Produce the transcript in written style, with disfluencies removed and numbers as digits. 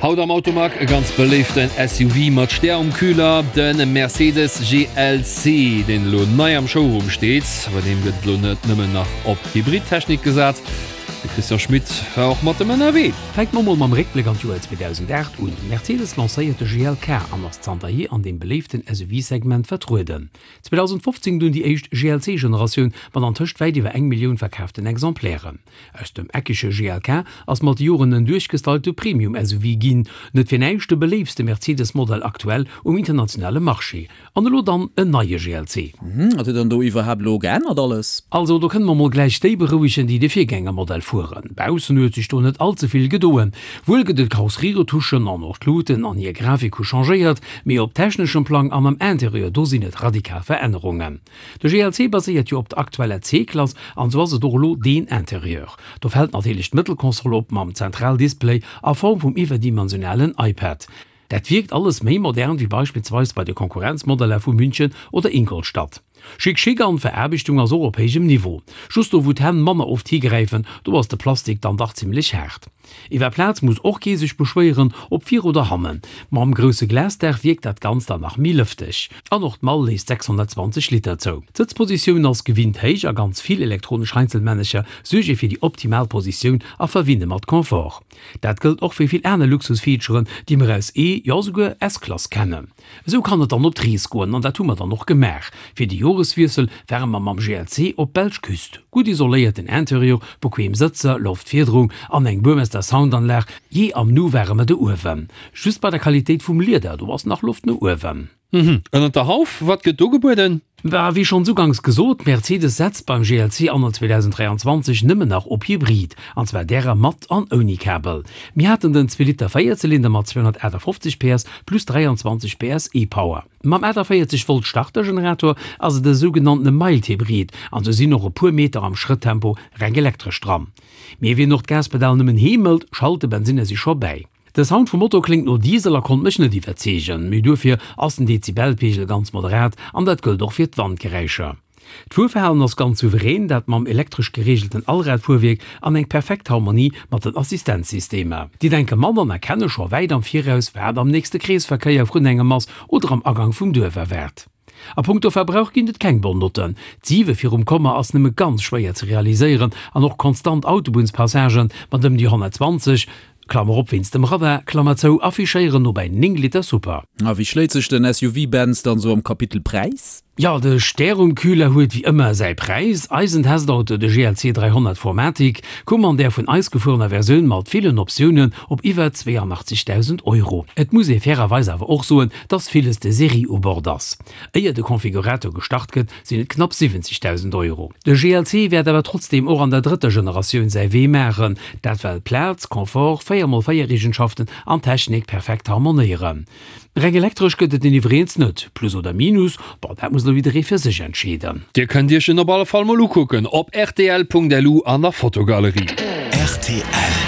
Haut am Automag e ganz beléiften SUV mat Stär um Kühler, de Mercedes GLC, deen elo nei am Showroom steet. Bei deem gëtt elo net nëmmen nach op Hybridtechnik gesat. De Christian Schmit war och mat em ënnerwee. Fänke mer mol mam Réckbléck an d'Joer 2008 un. Mercedes lancéiert de GLK an ass zanterhier an deem beléiften SUV-Segment vertrueden. 2015 dunn déi éischt GLC-Generatioun mat antëscht wäit iwwer eng Millioun verkaaften Exemplairen. Aus dem eckege GLK ass mat de Joren en duerchgestylte Premium-SUV ginn, net fir näischt de beléiftste Mercedes-Modell aktuell um internationale Marché. An elo dann en neie GLC. Wat huet dann do iwwerhaapt elo geännert alles? Also do kënne mer mol gläich déi berouegen, déi de Virgängermodell fueren. Baussen huet sech do net all ze vill gedoen. Wuel gëtt et Karosserieretouchen an och d'Luuten an hir Grafik hu changéiert, mee op techneschem Plang an am Interieur, do sinn et radikal Verännerungen. De GLC baséiert jo op der aktueller C-Klass an sou ass et och elo deen Interieur. Do fält natierlech d'Mëttelkonsole op mam Zentraldisplay a Form vum iwwerdimensionalen iPad. Dat wierkt alles méi modern wéi beispillsweis bei de Konkurrenzmodeller vu München oder Ingolstadt. Chic chic an d'Veraarbechtung ass och op héijem Niveau. Just do wou d'Hänn manner oft higräifen, do ass de Plastik dann dach zimmlech haart. Iwwer Plaz muss och kee sech beschwéieren, ob vir oder hannen. Mam grousse Glasdaach wierkt dat Ganzt dann nach méi lëfteg. An och d'Mall léisst 620 Liter zou. D'Sëtzpositioun ass gewinnt héich a ganz vill elektronesch Heinzelmännercher suerge fir déi optimal Positioun a verwinne mat Confort. Dat gëllt och fir vill aner Luxusfeaturen, déi mer aus E, jo souguer S-Klass kennen. Esou kann et dann op d'Rees goen an dat hu mer dann och gemaach. Fir de Joreswiessel ware mer mam GLC op d'belsch Küst. Gutt isoléierten Interieur, bequem Sëtzer, Loftfiederung an eng Burmester Soundanlag, jee am Nu ware mer do uewen. Just bei der Qualitéit vum Lieder, do ass nach Loft no uewen. Mhm. Ënnert der Hauf, wat gëtt do gebueden? Bah, wéi schonns uganks gesot, Mercedes setzt beim GLC anno 2023 nëmmen nach op Hybrid, an zwar därer mat an ouni Kabel. Mir haten den Zweeliter Véierzylinder mat 258 PS plus 23 PS e-Power. Mam 48 Volt Startergenerator ass et e sougenanntene Mild Hybrid, an sou sinn och e puer Meter am Schrëtttempo reng elektresch dran. Mee wien och d'Gaspedal nëmmen heemelt, schalt de Bensinner si scho bäi. De Sound vum Motor kléngt no Diesel a konnt mech net iwwerzeegen, mee duerfir ass den Dezibelpegel ganz moderat an dat gëllt och fir d'Wandgeräischer. D'Fuerverhalen ass ganz souverän, dat mam elektresch gereegelten Allradfuerwierk an eng perfekt Harmonie mat den Assistenzsystemer. Déi denke mat an erkenne scho wäit am Viraus, wat am nächste Kreesverkéier vrun engem ass oder am Agang vum Duerf erwaart. A punkto Verbrauch ginn et keng Bonnotten. D'Siwe virum Komma ass nëmme ganz schwéier ze realiséieren an och konstant Autobunnspassagen mat ëm déi 120, Klammer op wéinst dem Radar, Klammer zou, affichéieren no bäi 9 Liter Super. A wéi schléit sech den SUV Benz dann sou am Kapitel Präis? Jo, de Stärumkühler huet wéi ëmmer säi Präis. Eisen Testauto, de GLC 300 4MATIC, koum an där vun eis gefuerener Versioun mat villen Optiounen op iwwer 82.000 Euro. Et muss ee fairerweis awer och soen, dass villes de Serie u Bord ass. Éier de Konfigurator gestart gëtt, sinn et knapp 70.000 Euro. De GLC wäert awer trotzdeem och an der drëtter Generatioun säi Wee maachen, dat well Plaz, Confort, 4 mol 4 Eegenschaften an Technik perfekt harmonéieren. Reng elektresch gëtt et en iwwregens net. Plus oder Minus, bon dat muss elo jidderee fir sech entscheeden. Dir kënnt Iech en op alle Fall mol ukucken op rtl.lu an der Fotogalerie. Rtl.